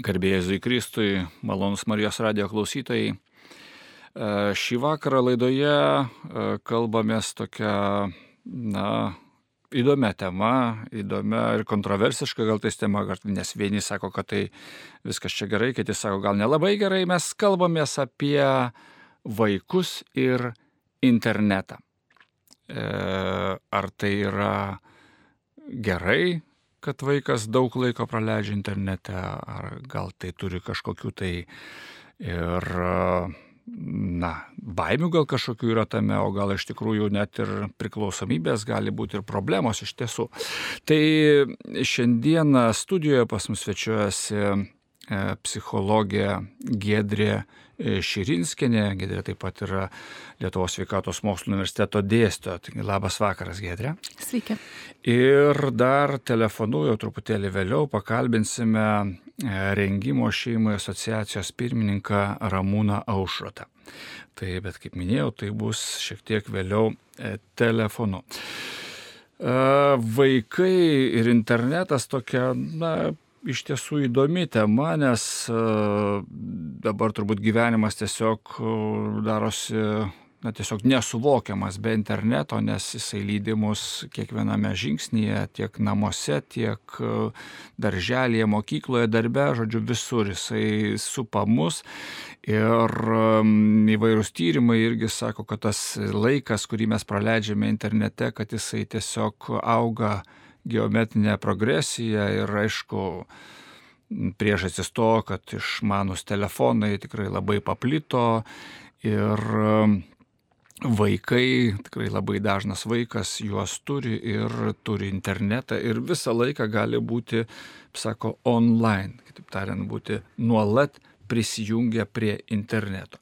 Garbė Jėzui Kristui, malonūs Marijos radijo klausytojai. Šį vakarą laidoje kalbamės tokia, įdomia tema, įdomia ir kontroversiška gal tais tema, nes vieni sako, kad tai viskas čia gerai, kiti sako, gal nelabai gerai. Mes kalbamės apie vaikus ir internetą. Ar tai yra gerai, kad vaikas daug laiko praleidžia internete, ar gal tai turi kažkokių tai ir, baimių gal kažkokių yra tame, o gal iš tikrųjų net ir priklausomybės gali būti ir problemos iš tiesų. Tai šiandieną studijoje pas mus svečiuojasi psichologė Giedrė Širinskienė. Giedrė taip pat yra Lietuvos sveikatos mokslų universiteto dėstytoja. Taigi, labas vakaras, Giedrė. Sveiki. Ir dar telefonu jau truputėlį vėliau pakalbinsime Rengimo šeimai asociacijos pirmininką Ramūną Aušrotą. Tai, bet kaip minėjau, tai bus šiek tiek vėliau telefonu. Vaikai ir internetas tokia, iš tiesų įdomi tema, nes dabar turbūt gyvenimas tiesiog darosi tiesiog nesuvokiamas be interneto, nes jisai lydi mus kiekviename žingsnyje, tiek namuose, tiek darželyje, mokykloje, darbe, žodžiu, visur jisai supa mus. Ir įvairūs tyrimai irgi sako, kad tas laikas, kurį mes praleidžiame internete, kad jisai tiesiog auga geometrinė progresija ir aišku, priežastis to, kad išmanūs telefonai tikrai labai paplito ir vaikai, tikrai labai dažnas vaikas juos turi ir turi internetą ir visą laiką gali būti, sako, online, kitaip tariant, būti nuolat prisijungę prie interneto.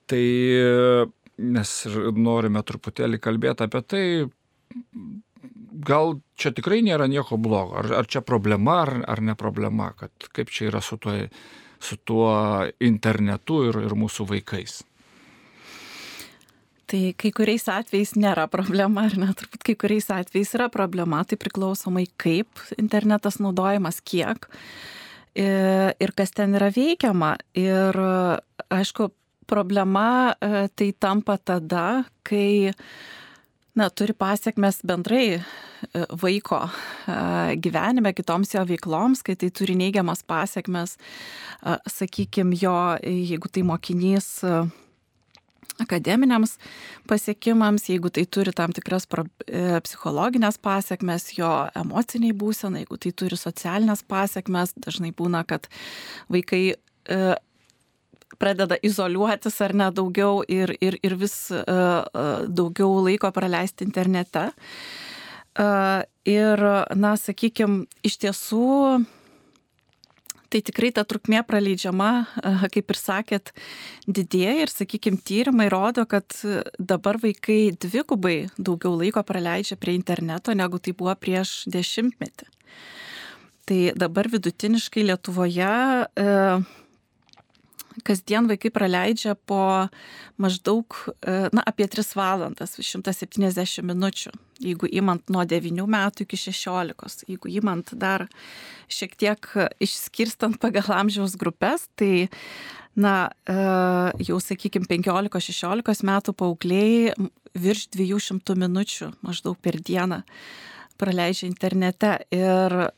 Tai mes norime truputėlį kalbėti apie tai, gal čia tikrai nėra nieko blogo, ar čia problema, ar ne problema, kad kaip čia yra su tuo internetu ir mūsų vaikais. Tai kai kuriais atvejais nėra problema, ar ne, turbūt kai kuriais atvejais yra problema, tai priklausomai kaip internetas naudojamas, kiek ir kas ten yra veikiama. Ir aišku, problema tai tampa tada, kai turi pasiekmes bendrai vaiko gyvenime, kitoms jo veikloms, kai tai turi neigiamas pasiekmes, sakykime, jo, jeigu tai mokinys akademiniams pasiekimams, jeigu tai turi tam tikras psichologinės pasiekmes, jo emociniai būsenai, jeigu tai turi socialinės pasiekmes, dažnai būna, kad vaikai pradeda izoliuotis ar ne daugiau ir vis daugiau laiko praleisti internete. Ir, sakykime, iš tiesų, tai tikrai ta trukmė praleidžiama, kaip ir sakėt, didėja ir, sakykime, tyrimai rodo, kad dabar vaikai dvigubai daugiau laiko praleidžia prie interneto, negu tai buvo prieš 10 metį. Tai dabar vidutiniškai Lietuvoje kasdien vaikai praleidžia po maždaug apie 3 valandas, 170 minučių, jeigu imant nuo 9 metų iki 16. Jeigu imant dar šiek tiek išskirstant pagal amžiaus grupės, tai jau, sakykime, 15-16 metų paaugliai virš 200 minučių maždaug per dieną praleidžia internete. Ir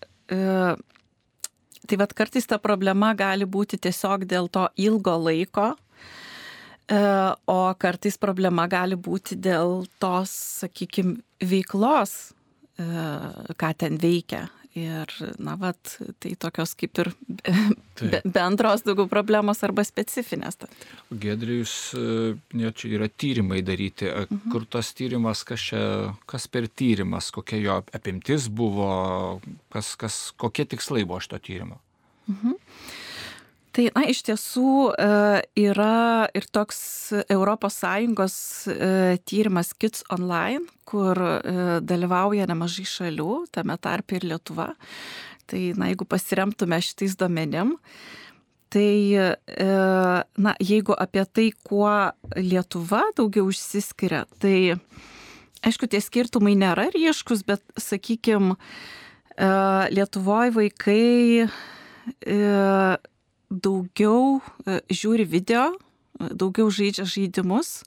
tai kartais ta problema gali būti tiesiog dėl to ilgo laiko, o kartais problema gali būti dėl tos, sakykime, veiklos, ką ten veikia. Ir, tai tokios kaip ir bendros daugiau problemos arba specifinės. Giedrė, čia yra tyrimai daryti. Kur tas tyrimas, kas per tyrimas, kokia jo apimtis buvo, kokie tikslai buvo šito tyrimo? Tai, iš tiesų yra ir toks ES tyrimas Kids Online, kur dalyvauja nemažai šalių, tame tarpe ir Lietuva. Tai, jeigu pasiremtume šitais duomenim, tai, jeigu apie tai, kuo Lietuva daugiau išsiskiria, tai, aišku, tie skirtumai nėra ryškus, bet, sakykime, Lietuvoje vaikai daugiau žiūri video, daugiau žaidžia žaidimus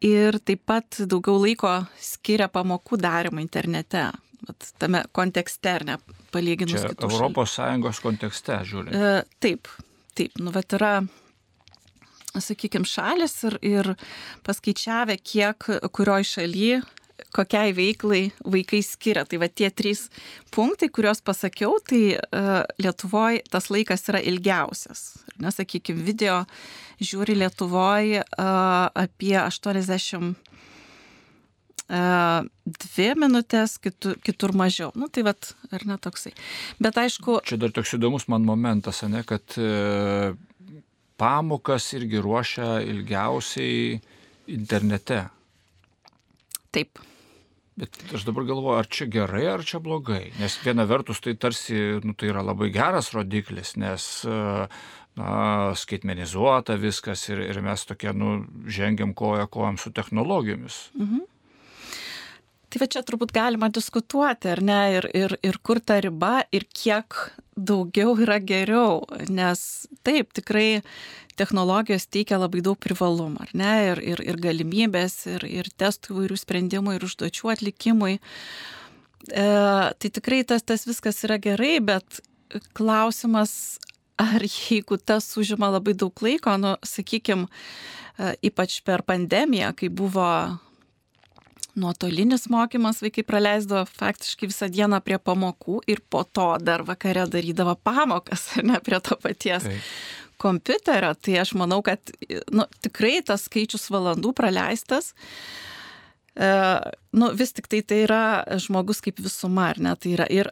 ir taip pat daugiau laiko skiria pamokų darymą internete. Tame kontekste, ar ne, palyginus čia kitų Europos Sąjungos kontekste žiūrint. Taip. Nu, yra, sakykime, šalis ir paskaičiavę, kiek kurioj šaly, kokiai veiklai vaikai skiria. Tai tie 3 punktai, kuriuos pasakiau, tai Lietuvoje tas laikas yra ilgiausias. Sakykime, video žiūri Lietuvoje apie 82 minutės, kitur mažiau. Nu, tai ar ne toksai. Bet aišku... Čia dar toks įdomus man momentas, ne, kad pamokas irgi ruošia ilgiausiai internete. Taip. Bet aš dabar galvoju, ar čia gerai, ar čia blogai. Nes viena vertus tai tarsi, tai yra labai geras rodiklis, nes skaitmenizuota viskas ir mes tokie, žengiam kojom su technologijomis. Mhm. Tai čia turbūt galima diskutuoti, ar ne, ir kur ta riba, ir kiek daugiau yra geriau, nes taip, tikrai technologijos teikia labai daug privalumų, ar ne, ir galimybės, ir testų įvairių sprendimų, ir užduočių atlikimui. Tai tikrai tas viskas yra gerai, bet klausimas, ar jeigu tas užima labai daug laiko, sakykime, ypač per pandemiją, kai buvo nuotolinis mokymas, vaikai praleisdavo faktiškai visą dieną prie pamokų ir po to dar vakare darydavo pamokas, ne prie to paties kompiuterio. Tai aš manau, kad tikrai tas skaičius valandų praleistas, vis tik tai yra žmogus kaip visuma, ar ne? Tai yra ir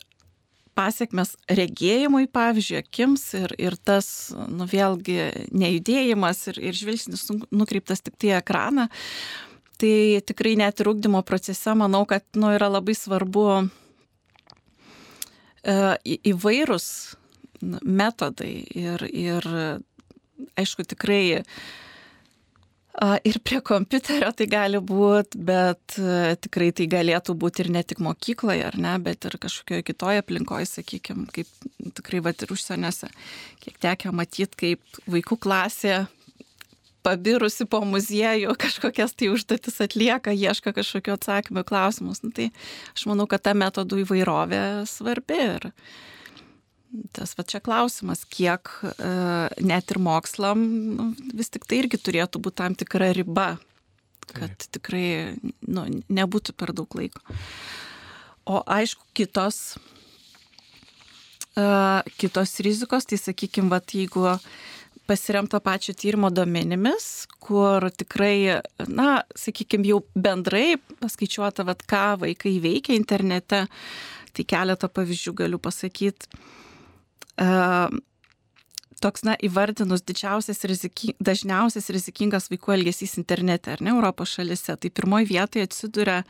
pasiekmes regėjimui, pavyzdžiui, akims ir tas, vėlgi, nejudėjimas ir žvilgsnis nukreiptas tik tai ekraną. Tai tikrai net ir ugdymo procese manau, kad yra labai svarbu įvairūs metodai ir aišku tikrai ir prie kompiuterio tai gali būti, bet tikrai tai galėtų būti ir ne tik mokykloje, ar ne, bet ir kažkokioje kitoje aplinkoje, sakykime, kaip tikrai ir užsieniuose, kiek tekę matyti, kaip vaikų klasė pabirusi po muziejų kažkokias tai užduotis atlieka, ieška kažkokio atsakymų klausimus. Tai aš manau, kad ta metodų įvairovė svarbi ir tas čia klausimas, kiek net ir mokslam vis tik tai irgi turėtų būti tam tikra riba, kad tikrai nebūtų per daug laiko. O aišku, kitos rizikos, tai sakykime, jeigu pasiremto pačio tyrimo duomenimis, kur tikrai, sakykime, jau bendrai paskaičiuota, ką vaikai veikia internete, tai keletą pavyzdžių galiu pasakyti. Toks, įvardinus dažniausias rizikingas vaikų elgesys internete, ar ne, Europos šalyse, tai pirmoje vietoje atsiduria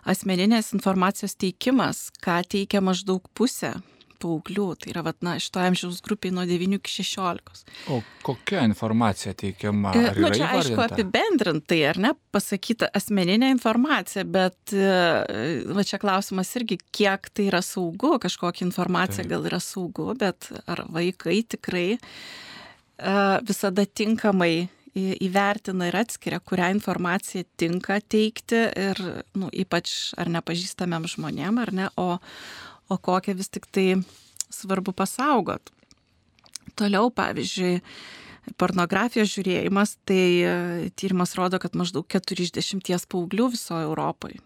asmeninės informacijos teikimas, ką teikia maždaug pusė paauglių, tai yra šito amžiaus grupiai nuo 9 iki 16. O kokia informacija teikiama? Ar yra čia aišku apibendrintai, ar ne, pasakyta asmeninė informacija, bet čia klausimas irgi, kiek tai yra saugu, kažkokia informacija gal yra saugu, bet ar vaikai tikrai visada tinkamai įvertina ir atskiria, kurią informaciją tinka teikti ir ypač ar nepažįstamiem žmonėm, ar ne, o kokią vis tik tai svarbu pasaugot. Toliau, pavyzdžiui, pornografijos žiūrėjimas, tai tyrimas rodo, kad maždaug 4 iš 10 paauglių visoje Europoje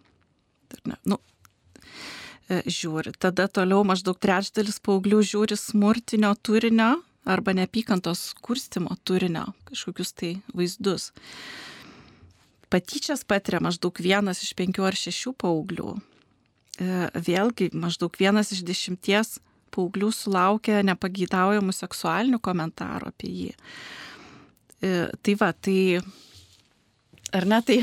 žiūri. Tada toliau maždaug 1/3 paauglių žiūri smurtinio turinio arba neapykantos kurstymo turinio, kažkokius tai vaizdus. Patyčias patiria maždaug 1 iš 5 ar 6 paauglių. Vėlgi, maždaug 1 iš 10 paauglių sulaukia nepageidaujamų seksualinių komentarų apie jį. Tai ar ne, tai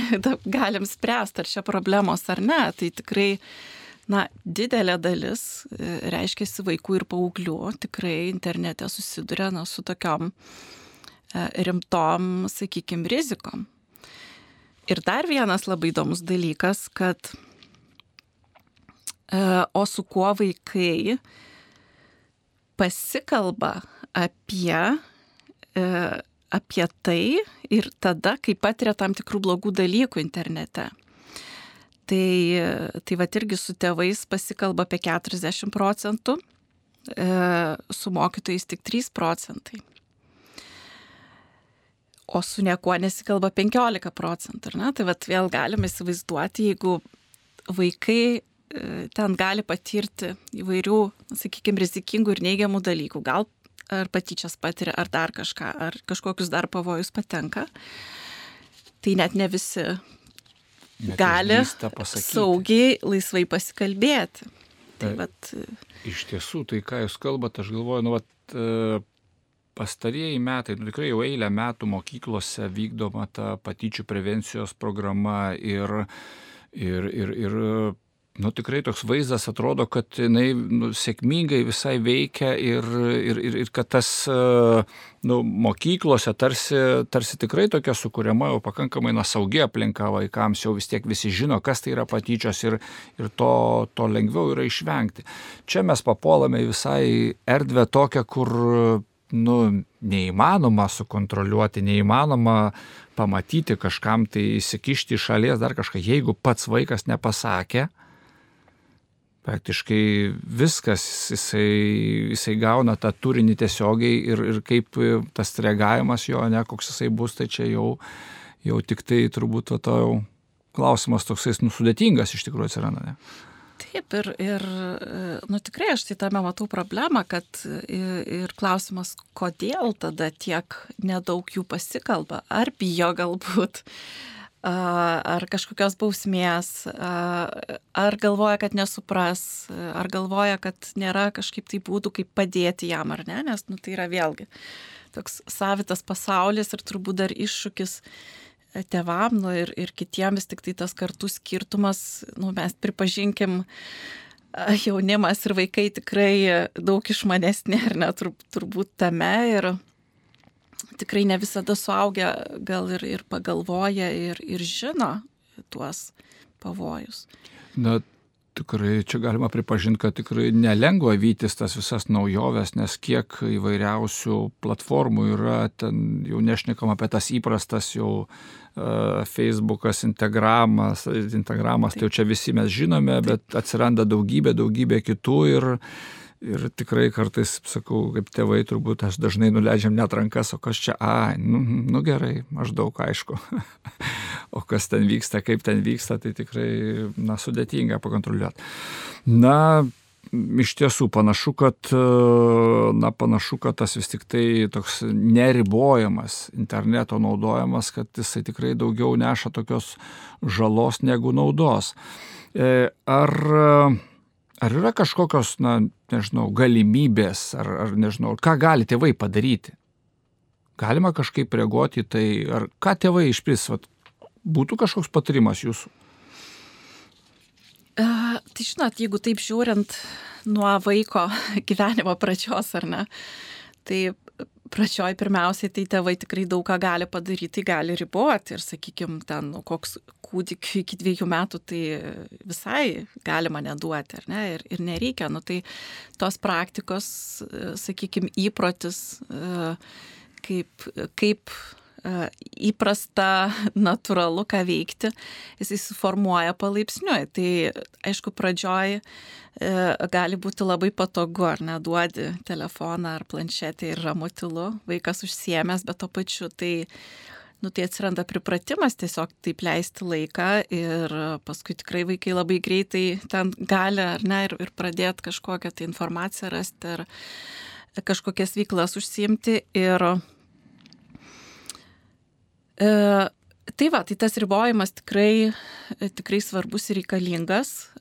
galim spręsti, ar čia problemos ar ne, tai tikrai, didelė dalis, reiškiasi vaikų ir paauglių, tikrai internete susiduria su tokiom rimtom, sakykime, rizikom. Ir dar vienas labai įdomus dalykas, kad o su kuo vaikai pasikalba apie apie tai ir tada, kai patiria tam tikrų blogų dalykų internete. Tai vat irgi su tėvais pasikalba apie 40%, su mokytojais tik 3%. O su niekuo nesikalba 15%. Ne? Tai vat vėl galime įsivaizduoti, jeigu vaikai ten gali patirti įvairių, sakykime, rizikingų ir neigiamų dalykų, gal ar patyčias patiria, ar dar kažką, ar kažkokius dar pavojus patenka, tai net ne visi gali saugiai, laisvai pasikalbėti. Tai vat... Iš tiesų, tai ką jūs kalbat, aš galvoju, pastarieji metai, tikrai jau eilę metų mokyklose vykdoma ta patyčių prevencijos programa ir tikrai toks vaizdas atrodo, kad jinai sėkmingai visai veikia ir kad tas mokyklose tarsi tikrai tokia sukuriama jau pakankamai saugi aplinka vaikams, jau vis tiek visi žino, kas tai yra patyčios ir to lengviau yra išvengti. Čia mes papuolame visai erdvę tokią, kur neįmanoma sukontroliuoti, neįmanoma pamatyti kažkam, tai įsikišti iš šalies dar kažką. Jeigu pats vaikas nepasakė, praktiškai viskas, jisai gauna tą turinį tiesiogiai ir kaip tas reagavimas jo, koks jisai bus, tai čia jau tik tai turbūt klausimas toksai sudėtingas iš tikrųjų atsiranda, ne? Taip, ir tikrai aš tai tame matau problemą, kad ir klausimas, kodėl tada tiek nedaug jų pasikalba, ar bijo galbūt, ar kažkokios bausmės, ar galvoja, kad nesupras, ar galvoja, kad nėra kažkaip tai būdų, kaip padėti jam, ar ne, nes tai yra vėlgi toks savitas pasaulis ir turbūt dar iššūkis tėvam ir kitiems, tik tai tas kartų skirtumas, mes pripažinkim, jaunimas ir vaikai tikrai daug išmanesni, ar ne, turbūt tame ir tikrai ne visada suaugę gal ir pagalvoja ir žino tuos pavojus. Tikrai čia galima pripažinti, kad tikrai nelengva vytis tas visas naujoves, nes kiek įvairiausių platformų yra, ten jau nešnekam apie tas įprastas jau Facebookas, Instagramas, tai jau čia visi mes žinome, bet atsiranda daugybė kitų ir tikrai kartais, sakau, kaip tėvai turbūt aš dažnai nuleidžiam net rankas, o kas čia, gerai, maždaug aišku. O kas ten vyksta, kaip ten vyksta, tai tikrai, sudėtinga pakontroliuoti. Iš tiesų panašu, kad tas vis tik tai toks neribojamas interneto naudojimas, kad jisai tikrai daugiau neša tokios žalos negu naudos. Ar yra kažkokios, galimybės, ar nežinau, ką gali tėvai padaryti? Galima kažkaip reaguoti į tai, ar ką tėvai išpris, būtų kažkoks patarimas jūsų? Tai žinot, jeigu taip žiūrint nuo vaiko gyvenimo pradžios, ar ne, tai pradžioj pirmiausiai tai tėvai tikrai daug ką gali padaryti, gali riboti ir, sakykime, ten koks kūdikiu iki 2 metų, tai visai galima neduoti, ar ne, ir nereikia. Tai tos praktikos, sakykime, įprotis, kaip įprasta, natūralu, ką veikti, jis suformuoja palaipsniui. Tai, aišku, pradžioj gali būti labai patogu, ar neduodi telefoną ar planšetę ir ramu tylu, vaikas užsiėmęs, bet to pačiu tai atsiranda pripratimas tiesiog taip leisti laiką ir paskui tikrai vaikai labai greitai ten gali, ar ne, ir pradėti kažkokią tai informaciją rasti ar kažkokias veiklas užsiimti ir tai tas ribojimas tikrai svarbus ir reikalingas,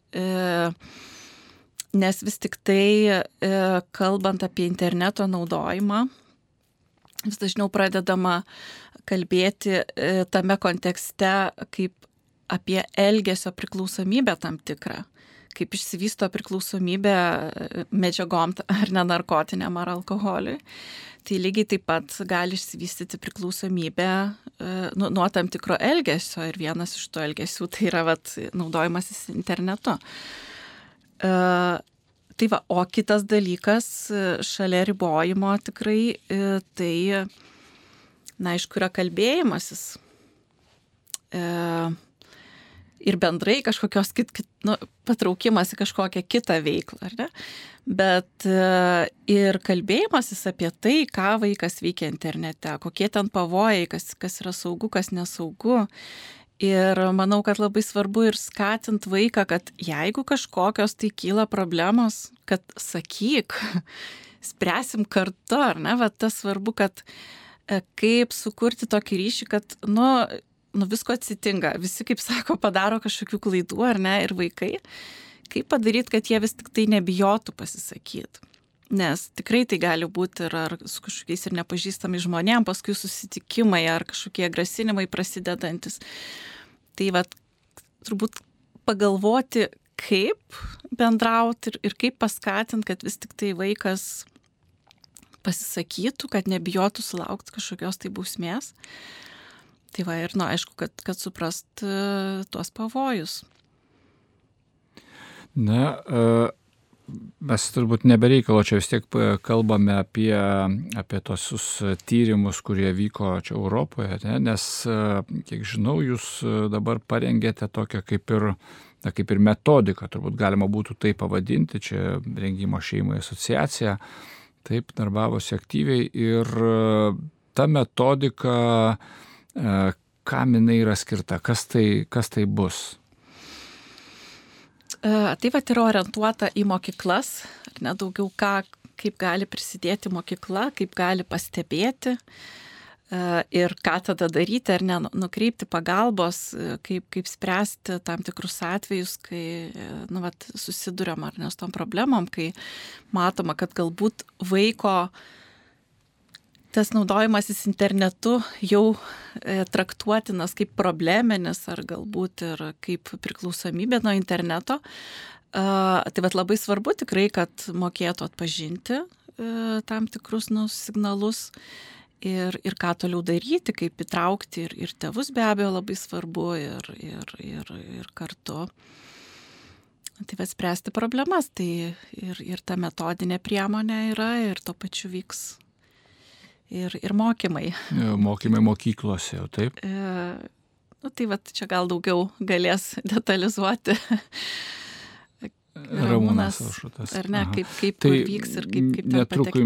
nes vis tik tai, kalbant apie interneto naudojimą, vis dažniau pradedama kalbėti tame kontekste kaip apie elgesio priklausomybę tam tikrą, kaip išsivysto priklausomybė medžiagom ar nenarkotiniam ar alkoholiui. Tai lygiai taip pat gali išsivystyti priklausomybė nuo tam tikro elgesio ir vienas iš to elgesių tai yra naudojimasis internetu. O kitas dalykas šalia ribojimo tikrai tai na, aišku, yra kalbėjimasis ir bendrai kažkokios patraukimas į kažkokią kitą veiklą, ar ne? Bet ir kalbėjimasis apie tai, ką vaikas veikia internete, kokie ten pavojai, kas yra saugu, kas nesaugu. Ir manau, kad labai svarbu ir skatint vaiką, kad jeigu kažkokios tai kyla problemos, kad sakyk, spręsim kartu, ar ne? Va, tas svarbu, kad kaip sukurti tokį ryšį, kad, visko atsitinka. Visi, kaip sako, padaro kažkokių klaidų, ar ne? Ir vaikai. Kaip padaryti, kad jie vis tik tai nebijotų pasisakyti. Nes tikrai tai gali būti ir ar su kažkokiais ir nepažįstami žmonėm, paskui susitikimai ar kažkokie grasinimai prasidedantis. Tai vat, turbūt pagalvoti, kaip bendrauti ir kaip paskatinti, kad vis tik tai vaikas pasisakytų, kad nebijotų sulaukti kažkokios tai bausmės. Tai va ir, aišku, kad suprast tuos pavojus. Na, mes turbūt nebereikalo čia vis tiek kalbame apie tosius tyrimus, kurie vyko čia Europoje, ne? Nes, kiek žinau, jūs dabar parengėte tokią kaip ir metodiką, turbūt galima būtų tai pavadinti, čia Rengimo šeimai asociacija, taip darbavosi aktyviai ir ta metodika, kam jinai yra skirta, kas tai bus? Tai vat yra orientuota į mokyklas, ar ne, daugiau kaip gali prisidėti mokykla, kaip gali pastebėti ir ką tada daryti, ar ne, nukreipti pagalbos, kaip spręsti tam tikrus atvejus, kai susiduriam ar ne su tom problemom, kai matoma, kad galbūt vaiko tas naudojimasis internetu jau traktuotinas kaip probleminis ar galbūt ir kaip priklausomybė nuo interneto. Tai vat labai svarbu tikrai, kad mokėtų atpažinti tam tikrus signalus ir ką toliau daryti, kaip įtraukti ir tėvus be abejo labai svarbu ir kartu. Tai vat spręsti problemas, tai ir ta metodinė priemonė yra ir tuo pačiu vyks ir mokymai. Mokymai mokyklose, jau taip? Tai vat čia gal daugiau galės detalizuoti Ramūnas Aušutas. Ar ne, kaip tai vyks ir kaip ten patekti.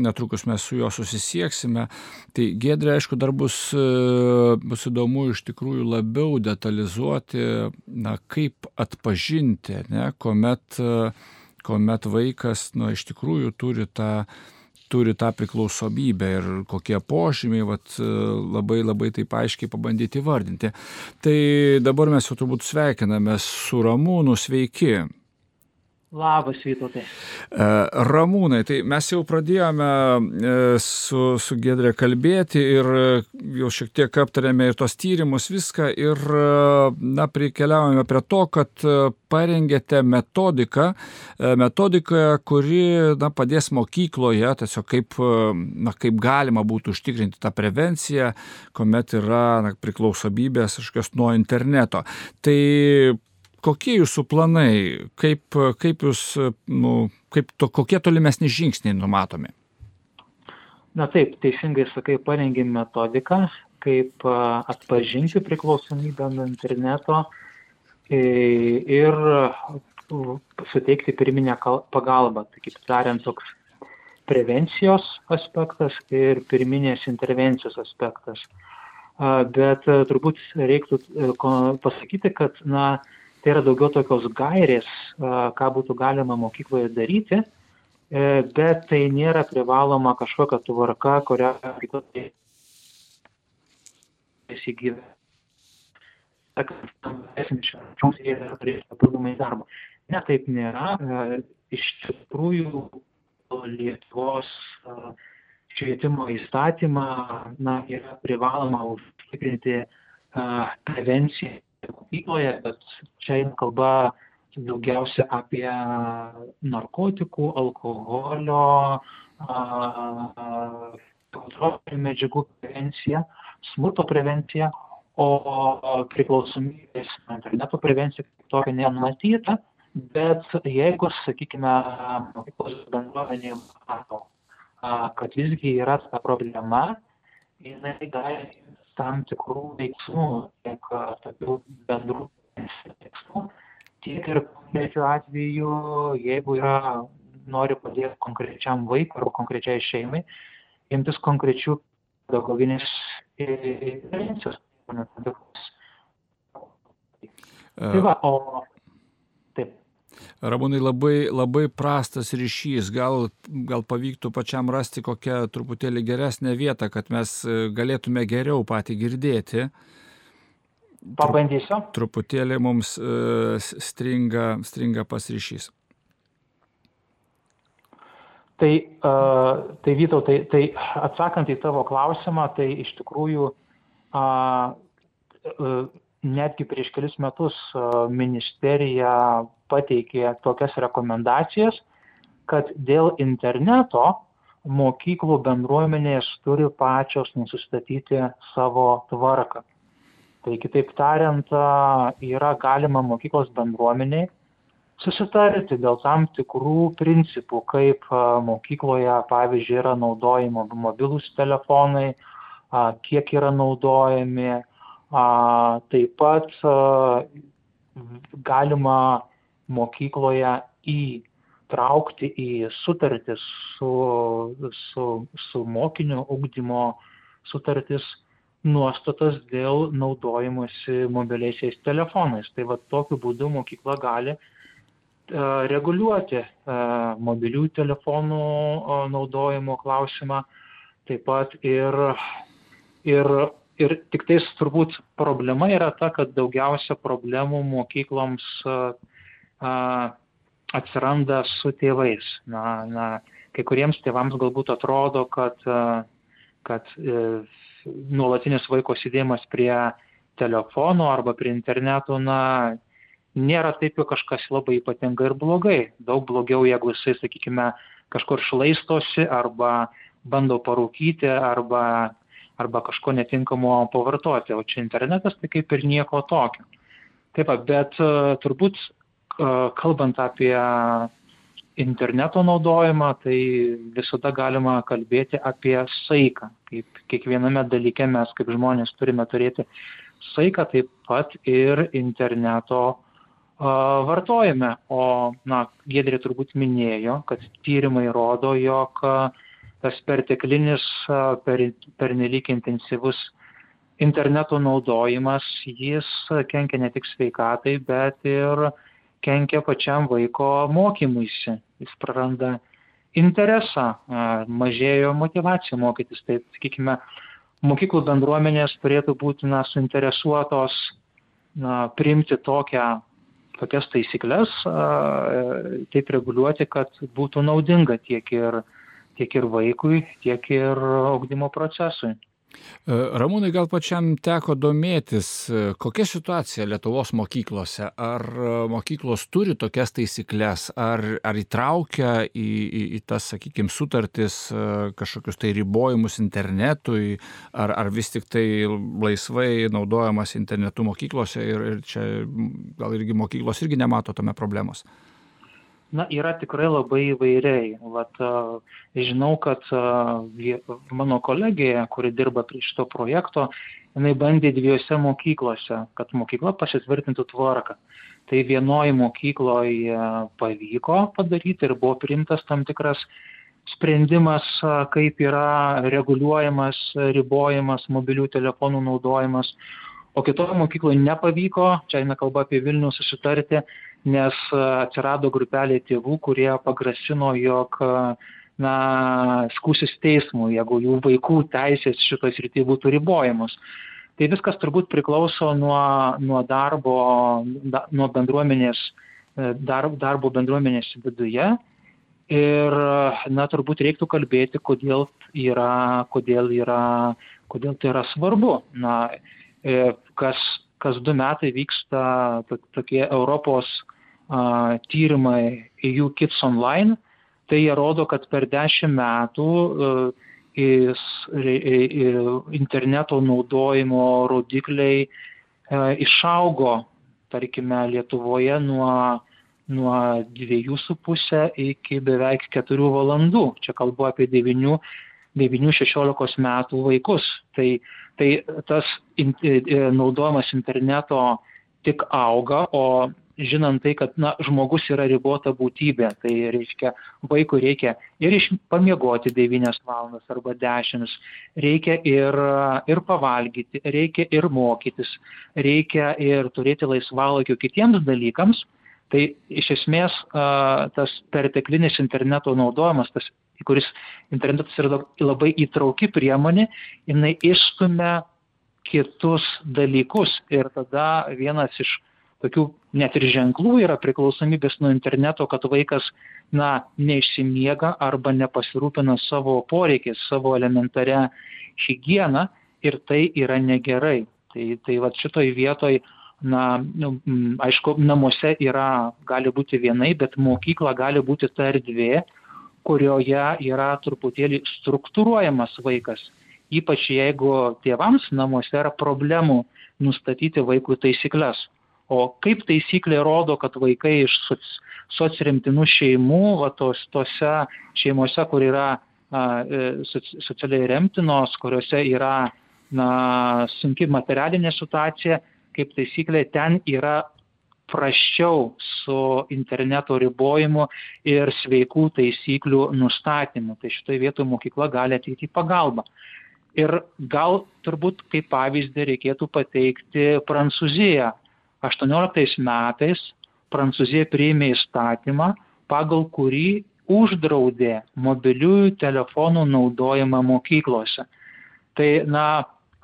Netrukus mes su juo susisieksime. Tai Giedrė, aišku, dar bus įdomu iš tikrųjų labiau detalizuoti, kaip atpažinti, ne, kuomet vaikas, iš tikrųjų turi tą priklausomybę ir kokie požymiai, labai taip aiškiai pabandyti įvardinti. Tai dabar mes jau turbūt sveikiname su Ramūnu, sveiki. Labas, Vytautai. Ramūnai, tai mes jau pradėjome su Giedre kalbėti ir jau šiek tiek aptarėme ir tos tyrimus, viską ir prikeliavome prie to, kad parengėte metodiką, kuri padės mokykloje, tiesiog kaip galima būtų užtikrinti tą prevenciją, kuomet yra priklausomybės kažkokios nuo interneto. Tai kokie jūsų planai, kokie tolimesni žingsniai numatomi? Na taip, teisingai sakai, parengėm metodiką, kaip atpažinti priklausomybę nuo interneto ir suteikti pirminę pagalbą. Tai kaip tariant, toks prevencijos aspektas ir pirminės intervencijos aspektas. Bet turbūt reiktų pasakyti, kad tai yra daugiau tokios gairės, ką būtų galima mokykloje daryti, bet tai nėra privaloma kažkokia tvarka, kurią įsigyvė. Ne, taip nėra. Iš tikrųjų, Lietuvos švietimo įstatymą yra privaloma užtikrinti prevenciją mokykloje, bet čia eina kalba daugiausia apie narkotikų, alkoholio, kontrolinių medžiagų prevenciją, smurto prevenciją, o priklausomybės interneto prevencija tokia nenumatyta, bet jeigu, sakykime, mokyklos bendruomenė mato, kad visgi yra ta problema jinai gali tam tikrų veiksmų, tiek tokių bendrų veiksmų, tiek ir konkrečiu atveju, jeigu nori padėti konkrečiam vaikui ar konkrečiai šeimai, imtis konkrečių pedagoginės intervencijos. Tai va, taip. Ramūnai, labai prastas ryšys. Gal pavyktų pačiam rasti kokią truputėlį geresnę vietą, kad mes galėtume geriau patį girdėti. Pabandysiu. Truputėlį mums stringa pas ryšys. Tai Vytautai, tai atsakant į tavo klausimą, tai iš tikrųjų netgi prieš kelis metus ministerija pateikė tokias rekomendacijas, kad dėl interneto mokyklų bendruomenės turi pačios nusistatyti savo tvarką. Tai kitaip tariant, yra galima mokyklos bendruomeniai susitarti dėl tam tikrų principų, kaip mokykloje, pavyzdžiui, yra naudojami mobilūs telefonai, kiek yra naudojami. Taip pat galima mokykloje įtraukti į sutartis su mokinio ugdymo sutartis nuostatas dėl naudojimosi mobiliaisiais telefonais. Tai va tokiu būdu mokykla gali reguliuoti mobilių telefonų naudojimo klausimą, taip pat ir tik tais turbūt problema yra ta, kad daugiausia problemų mokykloms atsiranda su tėvais. Kai kuriems tėvams galbūt atrodo, kad nuolatinis vaiko sėdėjimas prie telefono arba prie interneto, nėra taip jau kažkas labai ypatinga ir blogai. Daug blogiau, jeigu jisai, sakykime, kažkur šlaistosi arba bando parūkyti arba kažko netinkamo pavartoti. O čia internetas tai kaip ir nieko tokio. Taip, bet turbūt kalbant apie interneto naudojimą, tai visada galima kalbėti apie saiką. Kaip kiekviename dalyke mes kaip žmonės turime turėti saiką, taip pat ir interneto vartojame. O Giedrė turbūt minėjo, kad tyrimai rodo, jog tas perteklinis, pernelyg intensyvus interneto naudojimas, jis kenkia ne tik sveikatai, bet ir kenkia pačiam vaiko mokymuisi. Jis praranda interesą, mažėjo motyvacija mokytis. Tai, sakykime, mokyklų bendruomenės turėtų būti suinteresuotos priimti tokias taisyklės, taip reguliuoti, kad būtų naudinga tiek ir vaikui, tiek ir ugdymo procesui. Ramūnai, gal pačiam teko domėtis, kokia situacija Lietuvos mokyklose? Ar mokyklos turi tokias taisyklės, ar įtraukia į tas, sakykime, sutartis kažkokius tai ribojimus internetui, ar vis tik tai laisvai naudojamas internetu mokyklose ir čia gal irgi mokyklos irgi nemato tame problemos? Yra tikrai labai įvairiai. Žinau, kad mano kolegija, kuri dirba prie šito projekto, jinai bandė 2 mokyklose, kad mokykla pasitvirtintų tvarką. Tai vienoje mokykloje pavyko padaryti ir buvo priimtas tam tikras sprendimas, kaip yra reguliuojamas, ribojamas mobilių telefonų naudojimas. O kitoje mokykloje nepavyko, čia eina kalba apie Vilnių, susitarti, nes atsirado grupelė tėvų, kurie pagrasino, jog skųsis teismui, jeigu jų vaikų teisės šitoj srity būtų ribojamos. Tai viskas turbūt priklauso nuo bendruomenės, darbo bendruomenės viduje. Ir turbūt reiktų kalbėti, kodėl tai yra svarbu. Kas 2 metai vyksta tokie Europos tyrimai EU Kids Online, tai jie rodo, kad per 10 metų interneto naudojimo rodikliai išaugo, tarkime, Lietuvoje nuo 2,5 iki beveik 4 valandų. Čia kalbu apie 9 9-16 metų vaikus. Tai tas naudojimas interneto tik auga, o žinant tai, kad žmogus yra ribota būtybė, tai reiškia, vaikui reikia ir pamiegoti 9 valandas arba 10, reikia ir pavalgyti, reikia ir mokytis, reikia ir turėti laisvalaikio kitiems dalykams, tai iš esmės tas perteklinis interneto naudojimas, kuris internetas yra labai įtrauki priemonė, jinai išstumia kitus dalykus ir tada vienas iš tokių net ir ženklų yra priklausomybės nuo interneto, kad vaikas neišsimiega arba nepasirūpina savo poreikiais, savo elementaria higieną ir tai yra negerai. Tai vat šitoj vietoj, aišku, namuose gali būti vienai, bet mokykla gali būti ta erdvė, kurioje yra truputėlį struktūruojamas vaikas. Ypač jeigu tėvams namuose yra problemų nustatyti vaikui taisyklės. O kaip taisyklė rodo, kad vaikai iš socremtinų šeimų, tose šeimose, kur yra socialiai remtinos, kuriuose yra sunki materialinė situacija, kaip taisyklė ten yra prasčiau su interneto ribojimu ir sveikų taisyklių nustatymu. Tai šitoje vietoje mokykla gali ateiti į pagalbą. Ir gal turbūt kaip pavyzdį reikėtų pateikti Prancūziją. 18 metais Prancūzija priėmė įstatymą, pagal kurį uždraudė mobiliųjų telefonų naudojimą mokyklose. Tai,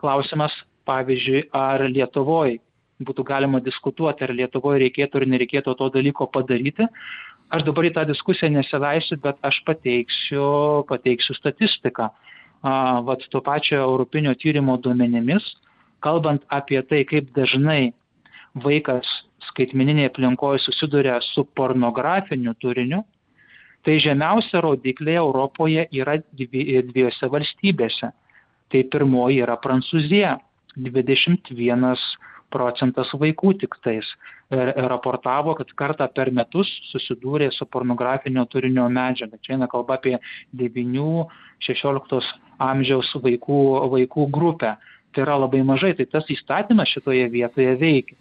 klausimas, pavyzdžiui, ar Lietuvoje būtų galima diskutuoti, ar Lietuvoje reikėtų ar nereikėtų to dalyko padaryti. Aš dabar į tą diskusiją nesileisiu, bet aš pateiksiu statistiką. To pačio Europinio tyrimo duomenimis, kalbant apie tai, kaip dažnai vaikas skaitmeninėje aplinkoje susiduria su pornografiniu turiniu, tai žemiausia rodikliai Europoje yra 2 valstybėse. Tai pirmoji yra Prancūzija, 21% vaikų tik tais raportavo, kad kartą per metus susidūrė su pornografinio turinio medžiaga. Čia eina kalba apie 9-16 amžiaus vaikų grupę. Tai yra labai mažai, tai tas įstatymas šitoje vietoje veikia.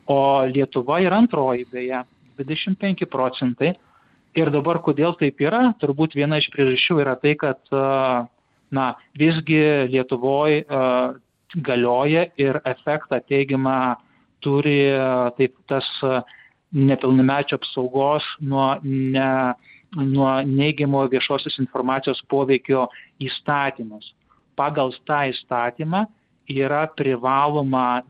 O Lietuva yra antroji, beje, 25%. Ir dabar kodėl taip yra? Turbūt viena iš priežasčių yra tai, kad visgi Lietuvoje galioja ir efektą teigiamą turi taip tas nepilnamečio apsaugos nuo neigiamo viešosios informacijos poveikio įstatymus. Pagal tą įstatymą yra privaloma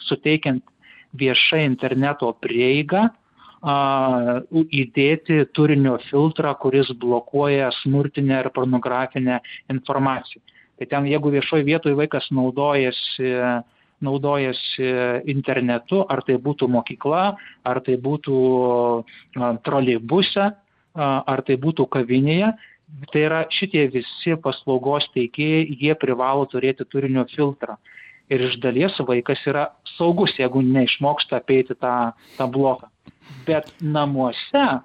suteikiant viešai interneto prieigą, įdėti turinio filtrą, kuris blokuoja smurtinę ir pornografinę informaciją. Tai ten, jeigu viešoje vietoje vaikas naudojasi internetu, ar tai būtų mokykla, ar tai būtų troleibuse, ar tai būtų kavinėje, tai yra šitie visi paslaugos teikėjai, jie privalo turėti turinio filtrą. Ir iš dalies vaikas yra saugus, jeigu neišmoksta apeiti tą bloką. Bet namuose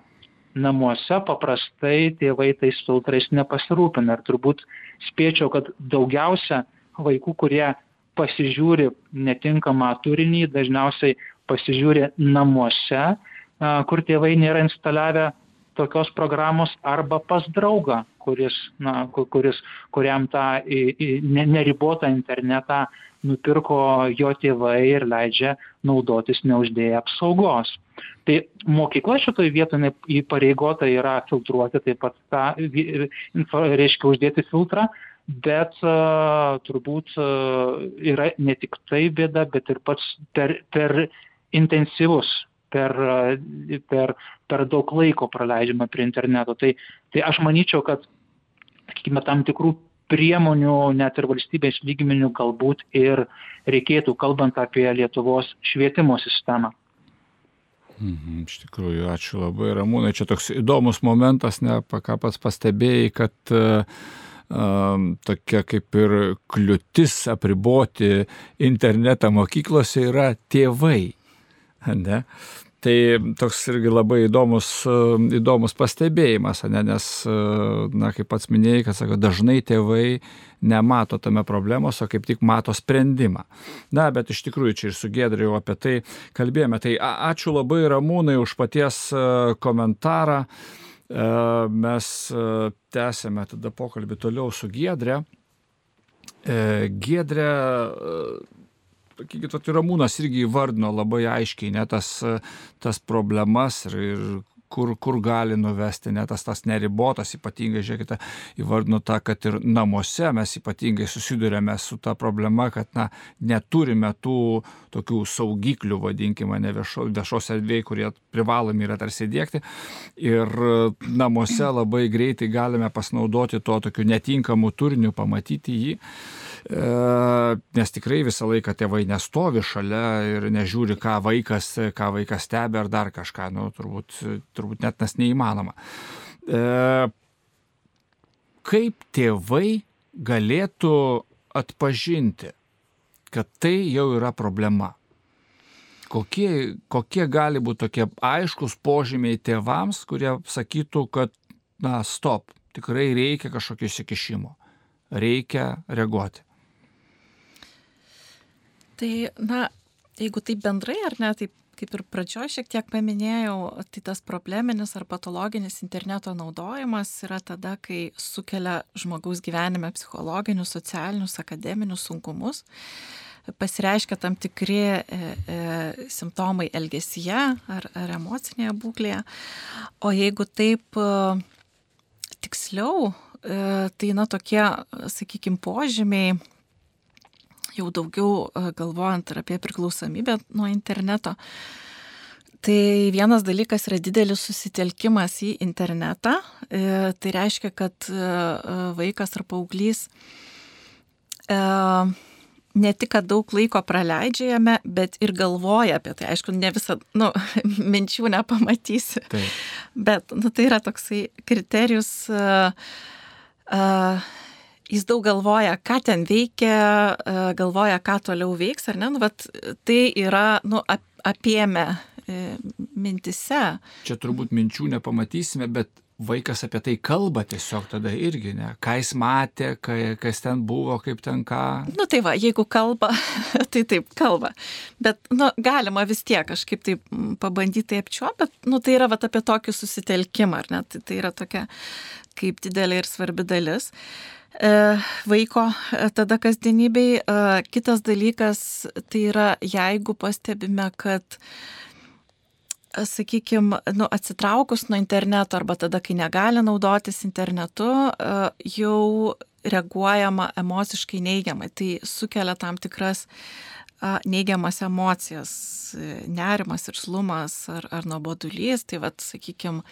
paprastai tėvai tais filtrais nepasirūpina. Ir turbūt spėčiau, kad daugiausia vaikų, kurie pasižiūri netinkamą turinį, dažniausiai pasižiūri namuose, kur tėvai nėra instaliavę tokios programos, arba pas draugą, kuriam tą neribotą internetą nupirko jo tėvai ir leidžia naudotis neuždėję apsaugos. Tai mokykla šitoje vietoje įpareigota yra filtruoti taip pat reiškia uždėti filtrą, bet turbūt yra ne tik tai bėda, bet ir pats per intensyvus, per daug laiko praleidžiama prie interneto. Tai aš manyčiau, kad tam tikrų priemonių net ir valstybės lygmenių galbūt ir reikėtų, kalbant apie Lietuvos švietimo sistemą. Iš tikrųjų, ačiū labai, Ramūnai. Čia toks įdomus momentas, ką pats pastebėjai, kad tokia kaip ir kliūtis apriboti internetą mokyklose yra tėvai. Ne? Tai toks irgi labai įdomus pastebėjimas, nes, kaip pats minėjai, kad sako, dažnai tėvai nemato tame problemos, o kaip tik mato sprendimą. Bet iš tikrųjų čia ir su Giedre jau apie tai kalbėjome. Tai ačiū labai Ramūnai už paties komentarą. Mes tęsėme tada pokalbį toliau su Giedre. Giedre, Ramūnas irgi įvardino labai aiškiai tas problemas ir kur gali nuvesti, tas neribotas, ypatingai, žiūrėkite, įvardino tą, kad ir namuose mes ypatingai susidurėme su ta problema, kad neturime tų tokių saugiklių, vadinkime, viešos erdvėje, kurie privalomi yra tarsi diegti. Ir namuose labai greitai galime pasinaudoti to tokiu netinkamu turiniu, pamatyti jį. Nes tikrai visą laiką tėvai nestovi šalia ir nežiūri, ką vaikas stebi ar dar kažką, turbūt net tas neįmanoma. Kaip tėvai galėtų atpažinti, kad tai jau yra problema? Kokie gali būti tokie aiškus požymiai tėvams, kurie sakytų, kad stop, tikrai reikia kažkokio įsikišimo, reikia reaguoti? Tai, jeigu taip bendrai, ar ne, taip kaip ir pradžioje šiek tiek paminėjau, tai tas probleminis ar patologinis interneto naudojimas yra tada, kai sukelia žmogaus gyvenime psichologinius, socialinius, akademinius sunkumus, pasireiškia tam tikri simptomai elgesyje ar emocinėje būklėje. O jeigu taip tiksliau, tai tokie, sakykime, požymiai, jau daugiau galvojant ir apie priklausomybę nuo interneto. Tai vienas dalykas yra didelis susitelkimas į internetą. Tai reiškia, kad vaikas ar paauglys ne tik, kad daug laiko praleidžia jame, bet ir galvoja apie tai. Aišku, ne visą, minčių nepamatysi. Taip. Bet, tai yra toksai kriterijus, jis daug galvoja, ką ten veikia, galvoja, ką toliau veiks, ar ne? Tai yra, apėmę mintise. Čia turbūt minčių nepamatysime, bet vaikas apie tai kalba tiesiog tada irgi, ne? Ką jis matė, kas ten buvo, kaip ten ką. Tai va, jeigu kalba, tai taip kalba. Bet, galima vis tiek kažkaip taip pabandyti apčiuopti, bet, tai yra apie tokį susitelkimą, ar ne? Tai yra tokia kaip didelė ir svarbi dalis vaiko tada kasdienybei. Kitas dalykas, tai yra, jeigu pastebime, kad sakykime, atsitraukus nuo interneto arba tada, kai negali naudotis internetu, jau reaguojama emociškai neigiamai. Tai sukelia tam tikras neigiamas emocijas, nerimas, irzlumas ar nuobodulys. Tai sakykime,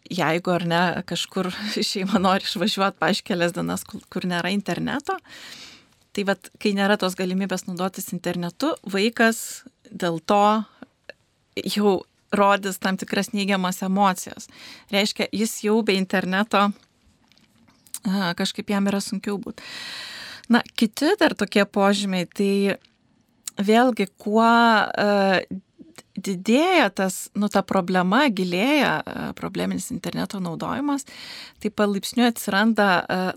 jeigu ar ne kažkur šeima nori išvažiuoti, pavyzdžiui, kelias dienas, kur nėra interneto, tai kai nėra tos galimybės naudotis internetu, vaikas dėl to jau rodys tam tikras neigiamas emocijas. Reiškia, jis jau be interneto kažkaip jam yra sunkiau būti. Kiti dar tokie požymiai, tai vėlgi, kuo didėja ta problema, gilėja probleminis interneto naudojimas, tai palaipsniui atsiranda,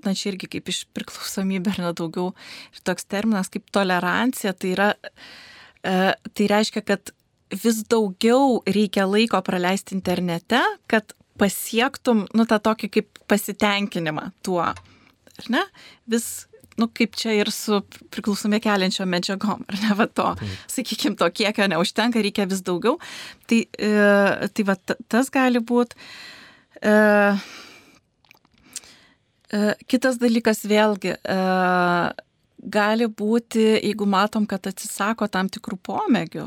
čia irgi kaip iš priklausomybė ar daugiau, ir toks terminas kaip tolerancija, tai reiškia, kad vis daugiau reikia laiko praleisti internete, kad pasiektum, tą tokį kaip pasitenkinimą tuo, ar ne? Vis kaip čia ir su priklausomybę keliančiom medžiagom, ar ne, sakykime, to kiekio neužtenka, reikia vis daugiau. Tai tas gali būti. Kitas dalykas vėlgi, gali būti, jeigu matom, kad atsisako tam tikrų pomėgių,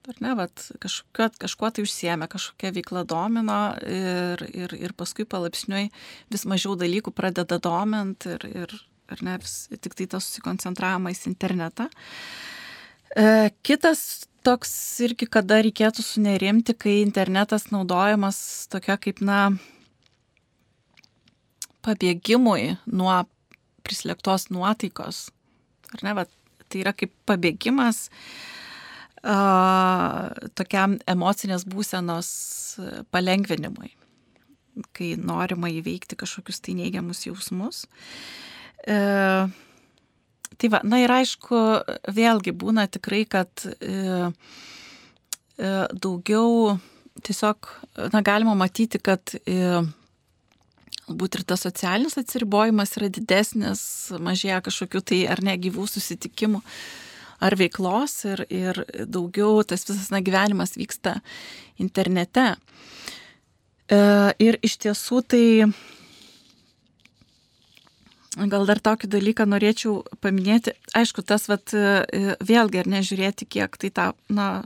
ar ne, kažkuo tai užsiėmė, kažkokia veikla domino ir paskui palaipsniui vis mažiau dalykų pradeda domint ir ar ne, tik tai tas susikoncentravimas į internetą. Kitas toks irgi, kada reikėtų sunerimti, kai internetas naudojamas tokia kaip, pabėgimui nuo prislėgtos nuotaikos. Ar ne, tai yra kaip pabėgimas tokiam emocinės būsenos palengvinimui, kai norima įveikti kažkokius tai neigiamus jausmus. Tai va, na ir aišku, vėlgi būna tikrai, kad daugiau tiesiog, na, galima matyti, kad galbūt ir tas socialinis atsiribojimas yra didesnis, mažėja kažkokių tai ar ne gyvų susitikimų ar veiklos ir daugiau tas visas gyvenimas vyksta internete. Ir iš tiesų tai gal dar tokį dalyką norėčiau paminėti. Aišku, tas vėlgi ar nežiūrėti, kiek tai tą, na,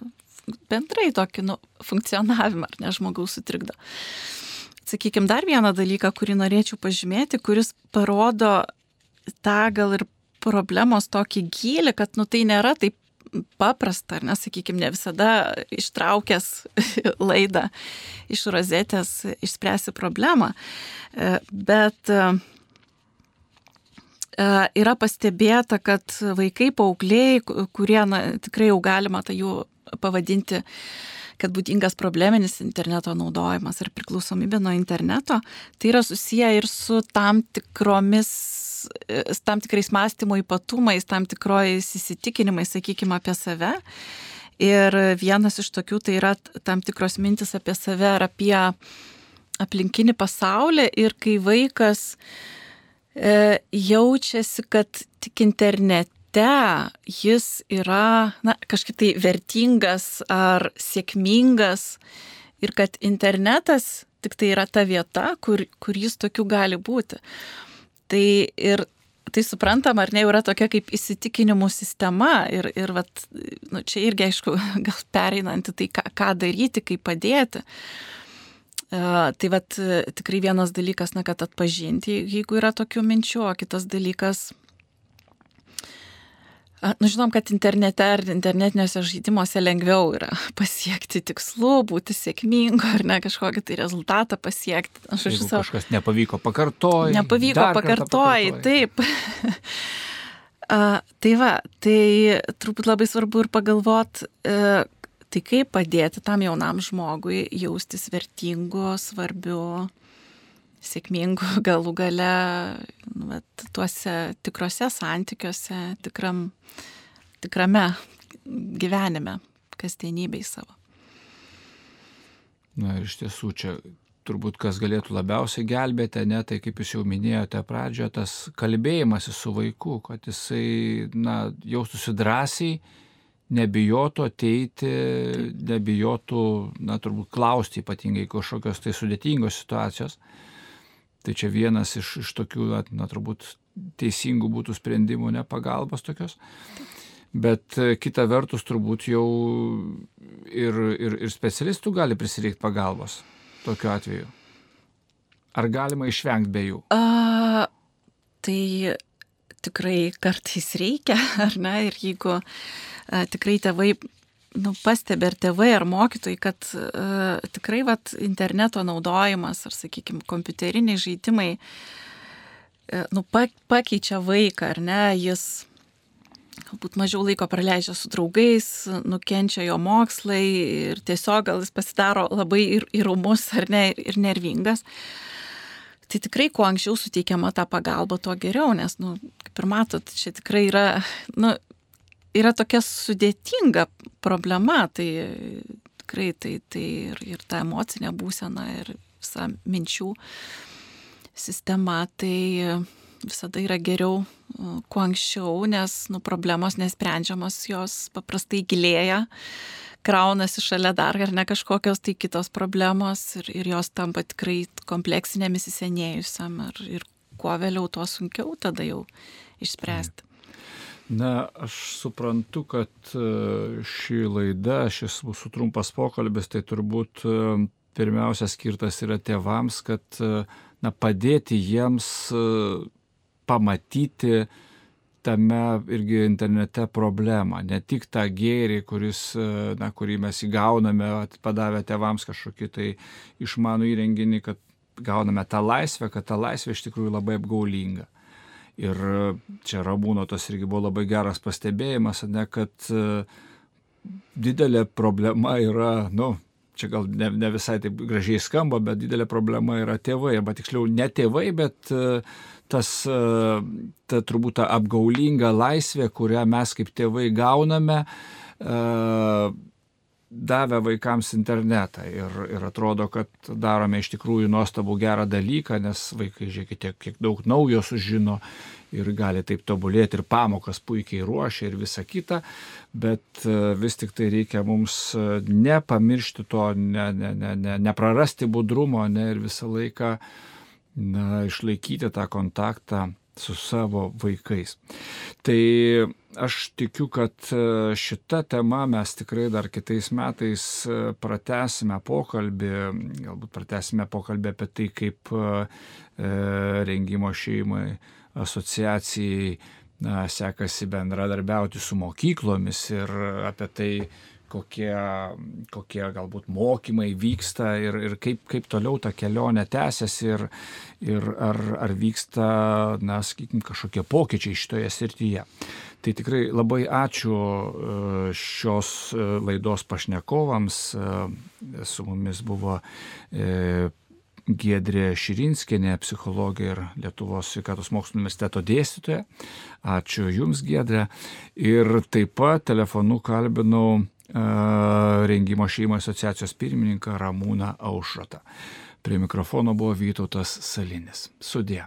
bendrai tokį funkcionavimą ar ne žmogaus sutrikdo. Sakykime, dar vieną dalyką, kurį norėčiau pažymėti, kuris parodo tą gal ir problemos tokį gylį, kad tai nėra taip paprasta, ar ne, sakykime, ne visada ištraukęs laidą iš rozetės išspręsi problemą, bet yra pastebėta, kad vaikai, paaugliai, kurie tikrai jau galima tai jų pavadinti, kad būdingas probleminis interneto naudojimas ar priklausomybė nuo interneto, tai yra susiję ir su tam tikrais mąstymo ypatumais, tam tikrojais įsitikinimais, sakykime, apie save. Ir vienas iš tokių tai yra tam tikros mintis apie save ar apie aplinkinį pasaulį. Ir kai vaikas jaučiasi, kad tik internete jis yra, na, kažkaip tai vertingas ar sėkmingas ir kad internetas tik tai yra ta vieta, kur jis tokiu gali būti. Tai suprantam, ar ne, yra tokia kaip įsitikinimų sistema ir čia irgi, aišku, gal pereinanti tai, ką daryti, kaip padėti. Tai tikrai vienas dalykas, na, kad atpažinti, jeigu yra tokių minčių, o kitas dalykas, žinom, kad internete ar internetiniuose žaidimuose lengviau yra pasiekti tikslų, būti sėkmingu ar ne, kažkokį tai rezultatą pasiekti. Jeigu kažkas nepavyko, pakartoji. Taip. Tai turbūt labai svarbu ir pagalvot, tai kaip padėti tam jaunam žmogui jaustis vertingu, svarbiu, sėkmingu, galų gale tuose tikrose santykiuose, tikrame gyvenime, kasdienybėj savo. Na ir iš tiesų čia turbūt kas galėtų labiausiai gelbėti, ne, tai kaip jūs jau minėjote pradžioje, tas kalbėjimasis su vaiku, kad jisai, na, jaustųsi drąsiai, nebijotų ateiti, nebijotų, na, turbūt klausti ypatingai kažkokios tai sudėtingos situacijos. Tai čia vienas iš tokių, na, turbūt teisingų būtų sprendimų, ne pagalbos tokios. Bet kita vertus turbūt jau ir specialistų gali prisireikti pagalbos tokiu atveju. Ar galima išvengti be jų? Tai tikrai kartais reikia, ar ne? Ir jeigu tikrai tėvai pastebi ar tėvai ar mokytojai, kad tikrai interneto naudojimas ar, sakykime, kompiuteriniai žaidimai pakeičia vaiką, ar ne, jis galbūt mažiau laiko praleidžia su draugais, nukenčia jo mokslai ir tiesiog gal jis pasidaro labai ir ūmus, ar ne, ir nervingas. Tai tikrai, kuo anksčiau suteikiama ta pagalba, tuo geriau, nes, kaip ir matot, čia tikrai yra tokia sudėtinga problema, tai tikrai tai ir ta emocinė būsena ir visa minčių sistema, tai visada yra geriau kuo anksčiau, nes problemos nesprendžiamos, jos paprastai gilėja, kraunasi šalia dar ar ne kažkokios tai kitos problemos ir jos tampa tikrai kompleksinėmis įsisenėjusiam ir kuo vėliau, tuo sunkiau tada jau išspręsti. Na, aš suprantu, kad ši laida, šis mūsų trumpas pokalbis, tai turbūt pirmiausia skirtas yra tėvams, kad padėti jiems pamatyti tame irgi internete problemą, ne tik tą gėrį, kurį mes įgauname, padavę tėvams kažkokį tai išmanų įrenginį, kad gauname tą laisvę, kad ta laisvė iš tikrųjų labai apgaulinga. Ir čia Ramūno tas irgi buvo labai geras pastebėjimas, ne, kad didelė problema yra, čia gal ne visai taip gražiai skamba, bet didelė problema yra tėvai, arba tiksliau ne tėvai, bet ta turbūt ta apgaulinga laisvė, kurią mes kaip tėvai gauname, davę vaikams internetą ir atrodo, kad darome iš tikrųjų nuostabų gerą dalyką, nes vaikai, žiūrėkite, kiek daug naujo sužino ir gali taip tobulėti ir pamokas puikiai ruošia ir visa kita, bet vis tik tai reikia mums nepamiršti to, neprarasti budrumo, ir visą laiką išlaikyti tą kontaktą su savo vaikais. Tai aš tikiu, kad šitą temą mes tikrai dar kitais metais pratęsime pokalbį, galbūt pratęsime pokalbį apie tai, kaip Rengimo šeimai asociacijai sekasi bendradarbiauti su mokyklomis ir apie tai, kokie galbūt mokymai vyksta ir kaip toliau ta kelionė tęsiasi ir ar vyksta, sakykime, kažkokie pokyčiai šitoje srityje. Tai tikrai labai ačiū šios laidos pašnekovams. Su mumis buvo Giedrė Širinskienė, psichologė ir Lietuvos sveikatos mokslų universiteto dėstytoja. Ačiū Jums, Giedrė. Ir taip pat telefonu kalbinau Rengimo šeimai asociacijos pirmininką Ramūną Aušrotą. Prie mikrofono buvo Vytautas Salinis. Sudie.